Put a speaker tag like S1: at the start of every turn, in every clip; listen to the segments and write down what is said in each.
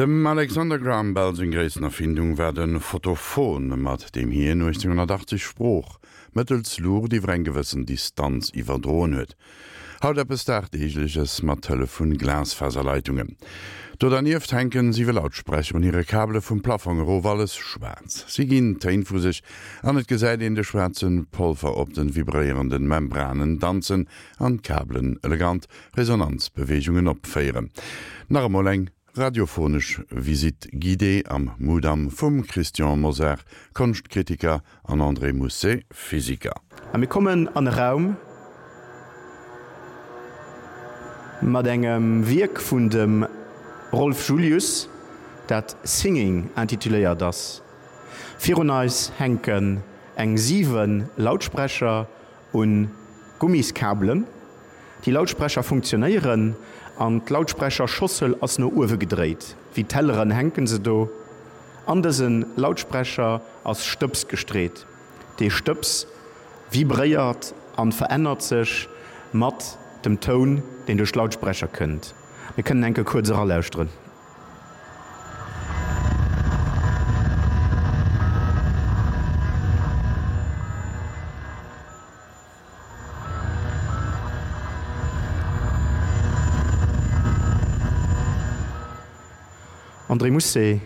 S1: Dem Alexander Graham Bell seng gréissten Erfindung war de Photophon, mat deem hien 1880 Sprooch mëttels Luucht iwwer eng gewëssen Distanz iwwerdroen huet. Haut eppes Dagdeegleches mat Hëllef vun Glasfaserleitungen. Do dernieft hänken siwe Lautsprecher un hire Kabele vum Plaffong erof, alles schwaarz. Si ginn Téin vu sech an et gesäit een de schwaarze Polver op den vibréierenden Membranen danzen an d'Kabelen elegant Resonanzbeweegungen opféieren. Nach emol eng Radiophonesch Visite guidée am Mudam vum Christian Mosar, Konschtkritiker, an André Mousset, Physiker.
S2: A mir kommen an e Raum mat engem Wierk vun dem Rolf Julius, dat Singing intituléiert ass. Virun eis hänken eng 7 Lautsprecher un Gummiskabelen. Déi Lautsprecher funktionéieren an d'Lautsprecherschossel ass no uewe gedréit. Wéi Telleren hänken se do. An dëse Lautsprecher ass Stëbs gestreet. Dee Stëbs vibréiert an verännert sech mat dem Toun, deen duerch d'Lautsprecher kënnt. Mir kënnen enke kuerz eralauschteren. André Mousset,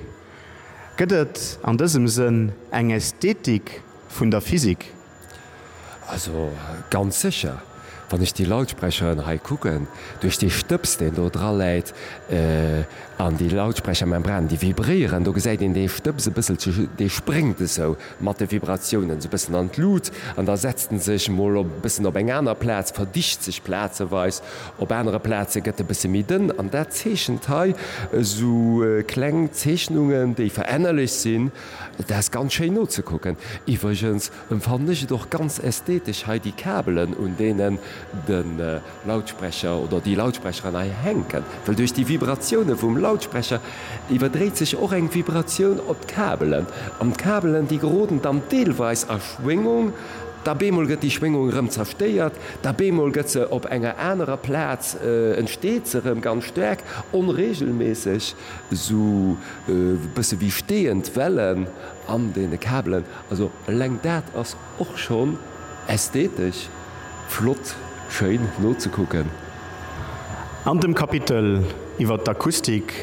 S2: Gëtt et an dësem Sënn eng Ästhetik vun der Physik?
S3: Also ganz sécher, wann ech déi Lautsprecheren hei kucken, duerch dee Stëbs deen do dra läit an déi Lautsprechermembranen déi vibréieren, do gesäit een dee Stëbs e bësselche, dee spréngt esou mat de Vibratiounen esou e bëssen an d'Lut an da setzt en sech mol op e bëssen op eng aner Plaz, verdicht sech plazeweis, op anere Plaze gëtt e bësse méi dënn an dat zeechent hei esou kleng Zeechnungen, déi verännerlech sinn. Dat ass ganz schéin nozekucken. Iwwregens Emfannen ech et och ganz ästhetesch hei déi Kabelen un deenen de Lautsprecher oder déi Lautsprecheren hei hänken, well duerch déi Vibratioune vum Lautsprecher iwwerdréit sech och eng Vibratioun op d'Kabelen an d'Kabelen déi geroden dann deelweis a Schwéngung, da bemol gëtt déi Schwéngung erëm zerstéiert, da bemol gëtt se op enger anerer Plaz entsteet se erëm ganz staark onregelméisseg, esou e bësse wéi steeënd Wellen an deene Kabelen. Also eleng dat ass och schonn ästhetesch flott, schéin nozekucken.
S2: An dem Kapitel iwwer d'Akustik,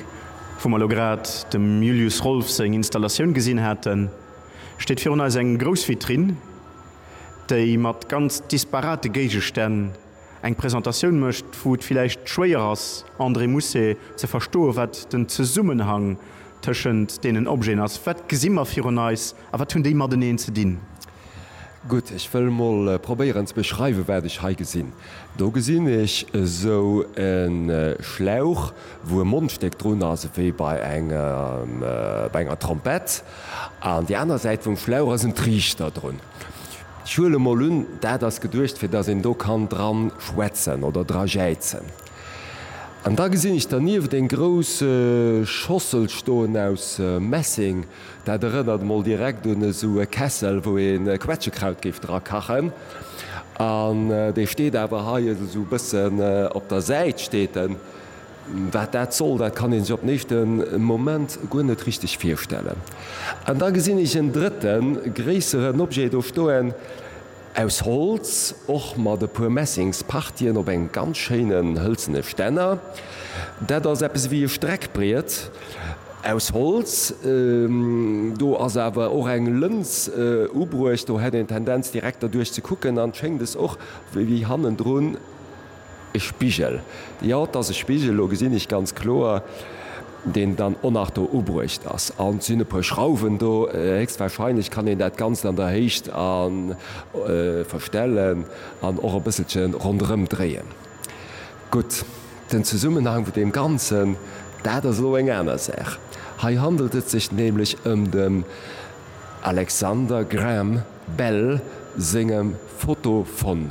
S2: wou mer elo grad dem Julius Rolff seng Installatioun gesinn haten, steet virun eis eng grouss Vitrinn, déi mat ganz disparate Géigestänn eng Presentatioun mécht, wou et villäicht schwéier ass, André Mousset, ze verstoen, wat den Zesummenhang tëschent deenen Objeten ass. Wat gesi mer virun eis a wat hunn déi mateneen ze dinn?
S3: Gutt, ech wëll mol probéieren ze beschreiwen, wat ech hei gesinn. Do gesinn ech esou e Schlauch, wou e Mondstéck drun ass, ewéi bei engem, bei enger Trompett. An déi aner Säit vum Schlauch ass en Triichter drun. Ech huele mol un, dat ass geduecht, fir dass een do kann dran schwätzen oder dra jäizen. An da gesinn ech dernieft eng grouss Schossel stoen aus Messing. Dat erënnert mol direkt un esou e Kessel, wou ee Quetschekraut géif dra kachen. An dee steet awer hei esou e bëssen op der Säit steet en. Wat dat soll, dat kann ee sech op den éischte Moment guer net richteg virstellen. An da gesinn ech en drëtten, gréisseren Objet do stoen, aus Holz, och mat e puer Messingspartien op engem ganz schéinen hëlzene Stänner. Dat ass eppes ewéi e Streckbriet aus Holz. Do ass awer och eng Lëns ubruecht, do hätt een d'Tendenz direkt derduerch ze kucken an schéngt es och wéi hannendrun E Spigel, jo, et ass e Spigel, elo gesinn ech ganz kloer, deen dann och nach do ubruecht ass. An et sinn e puer Schrauwen do, héchstwahrscheinlech kann een dat Ganzt an der Héicht a verstellen an och e bësselche ronderëm dréien. Gutt, den Zesummenhang vun deem Ganzen, dat ass elo eng aner Saach. Hei handelt et sech nämlech ëm dem Alexander Graham Bell sengem Photophon.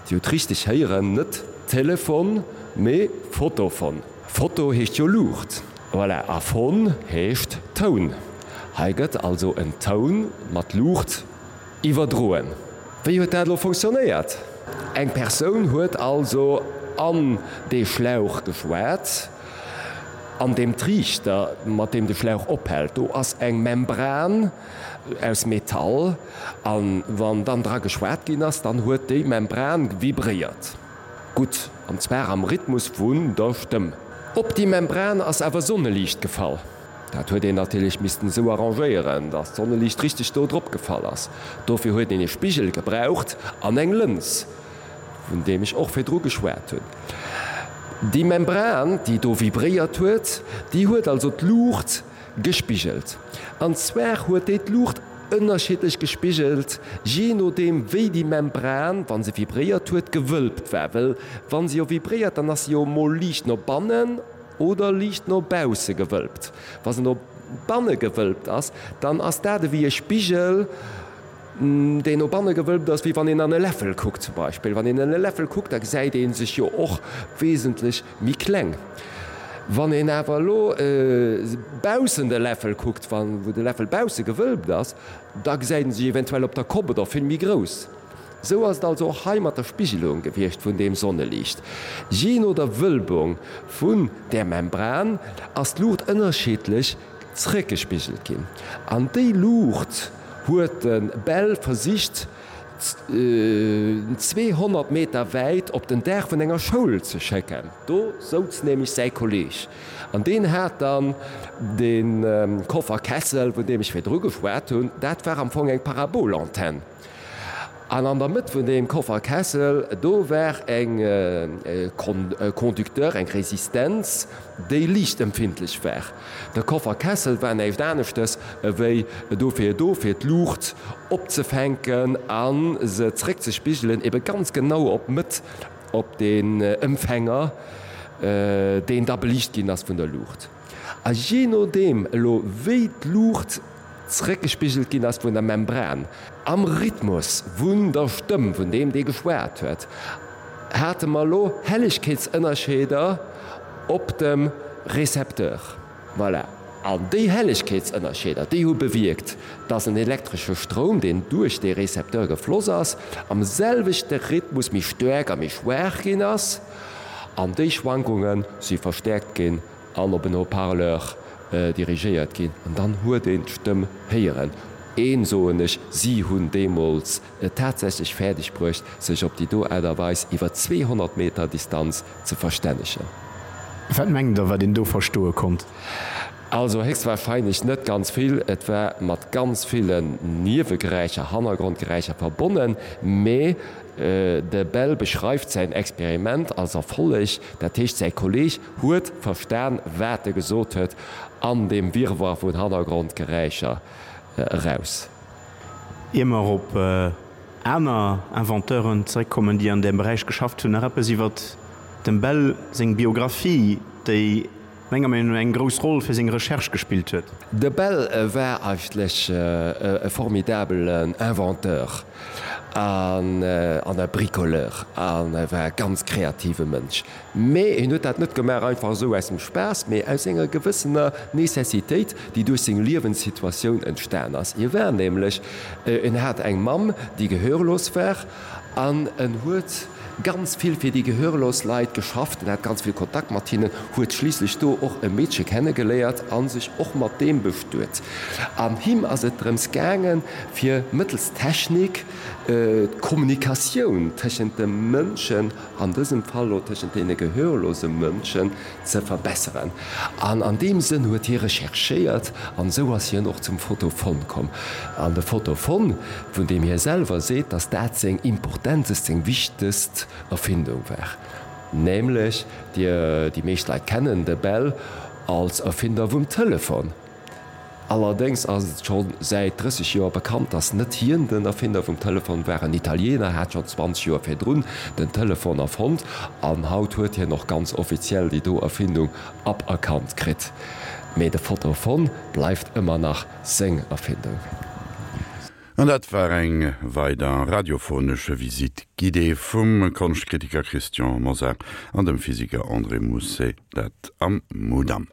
S3: Dir hutt richteg héieren, net Telefon, mee Photophon. Photo heescht jo Luucht, voilà, a Phon heescht Toun. Hei gëtt also en Toun mat Luucht iwwerdroen. Wéi huet dat elo funktionéiert? Eng Persoun huet also an dee Schlauch geschwat. An deem Triichter, mat deem de Schlauch ophält, do ass eng Membran aus Metall, a wann dann dra geschwat ginn ass, dann huet déi Membran vibréiert. Gutt, an zwar am Rhythmus vun der Stëmm. Op déi Membran ass awer Sonneliicht gefall. Dat huet een natierlech missten esou arrangéieren, dass d'Sonneliicht richteg do drop gefall ass. Dofir huet een e Spigel gebraucht an eng Lëns, vun deem ech och virdru geschwat hunn. Déi Membran, déi do vibréiert huet, déi huet also d'Luucht gespigelt. An zwar huet déi d'Luucht ënnerschiddlech gespigelt, jee nodeem wéi déi Membran, wa se vibréiert huet, gewölbt war. Well wa se jo vibréiert, dann ass se jo emol liicht no bannen oder liicht no bausse gewölbt. Wa se no banne gewölbt ass, dann ass dat ewéi e Spigel, deen no banne gewölbt ass, wéi wann een an e Läffel kuckt zum Beispill. Wann een an e Läffel kuckt, da gesäit ee sech jo och wesentlech méi kleng. Wann een awer elo baussen de Läffel kuckt, wou de Läffel bausse gewölbt ass, da gesäit ee sech eventuell op der Kopp oder vill méi grouss. Sou ass et also och hei mat der Spigelung gewiescht vun deem Sonneliicht. Jee no der Wölbung vun där Membran ass d'Luucht ënnerschiddlech zréckgespigelt ginn. An déi Luucht huet de Bell versicht 200 Meter wäit op den Daach vun enger Schoul ze schécken. Do souz nämlech säi Kolleeg an deen hat dann de Koffer Kessel, vun deem ech virdru geschwat hunn. Dat war am Fong eng Parabolantenn. An an der Mëtt vun deem Kofferkessel, do war eng Conducteur, eng Resistenz, déi liichtempfindlech war. De Kofferkessel war näischt aneschtes ewéi dofir do, fir d'Luucht opzefänken a se zréckzespigelen, ebe ganz genau op d'Mëtt, op den Empfänger, deen da beliicht ginn ass vun der Luucht. A jee nodeem elo wéi d'Luucht zréckgespigelt ginn ass vun der Membran, am Rhythmus vun der Stëmm vun deem dee geschwat huet, hate mer elo Hellegkeetsënnerscheeder op dem Recepteur. Voilà. An déi Hellegkeetsënnerscheeder, déi hu bewierkt, dass en elektresche Stroum, deen duerch dee Recepteur gefloss ass, am selwechte Rhythmus méi staark a méi schwaach ginn ass. An déi Schwankunge si verstäerkt ginn an op en Haut-parleur dirigéiert ginn, an dann huet een d'Stëmm héieren. Een, soen ech, si hunn deemools et tatsächlech fäerdeg bruecht, sech op déi do Aart a Weis iwwer 200 Meter Distanz ze verstännegen.
S2: Wat mengt Der, wat een do verstoe konnt?
S3: Also héchstwahrscheinlech net ganz vill. Et war mat ganz villen Niewegeräischer, Hannergrondgeräischer verbonnen, mee de Bell beschreift säin Experiment als Erfolleg. Dat heescht, säi Kolleeg huet verstan, wat e gesot huet, an deem Wirrwarr vun Hannergrondgeräischer eraus.
S2: Ier mer op aner Inventeuren zeréckkommen, déi an deem Beräich geschafft hunn, nach eppes iwwer dem Bell seng Biographie, déi menger Meenung no eng grouss Roll fir seng Recherche gespillt huet.
S3: De Bell war eigentlech e formidabelen Inventeur an e Bricoleur an e war e ganz kreative Mënsch. Mee hien huet dat net gemaach einfach esou aus dem Spaass, mee aus enger gewëssener Necessitéit, déi duerch seng Liewenssituatioun entstan ass. Hie war nämlech, en hat eng Mamm, déi gehörlos war, an en huet ganz vill fir déi gehörlos Leit geschafft, en hat ganz vill Kontakt mat hinnen, huet schliisslech do och e Meedche kennegeléiert a sech och mat deem bestuet. An him ass et drëms gaangen, fir mëttels Technik d'Kommunikatioun tëschent de Mënschen, an dësem Fall elo tëschent deene gehörlose Mënschen, ze verbesseren. An an deem Sënn huet hie recherchéiert an esou ass hien och zum Photophon komm. An de Photophon, vun deem hie selwer seet, datt dat seng importentest, seng wichtegst Erfindung war, nämlech, déi meescht Leit kennen de Bell als Erfinder vum Telefon. Allerdéngs ass et scho säit 30 Joer bekannt, datt net hien den Erfinder vum Telefon war. En Italiener hat schonn 20 Joer virdrun den Telefon erfonnt an haut huet hien och ganz offiziell déi do Erfindung aberkannt kritt. Mee de Photophon bleift ëmmer nach seng Erfindung.
S1: An dat war eng weider radiophonesch Visite guidée vum Konschtkritiker Christian Mosar an dem Physiker André Mousset, dat am Mudam.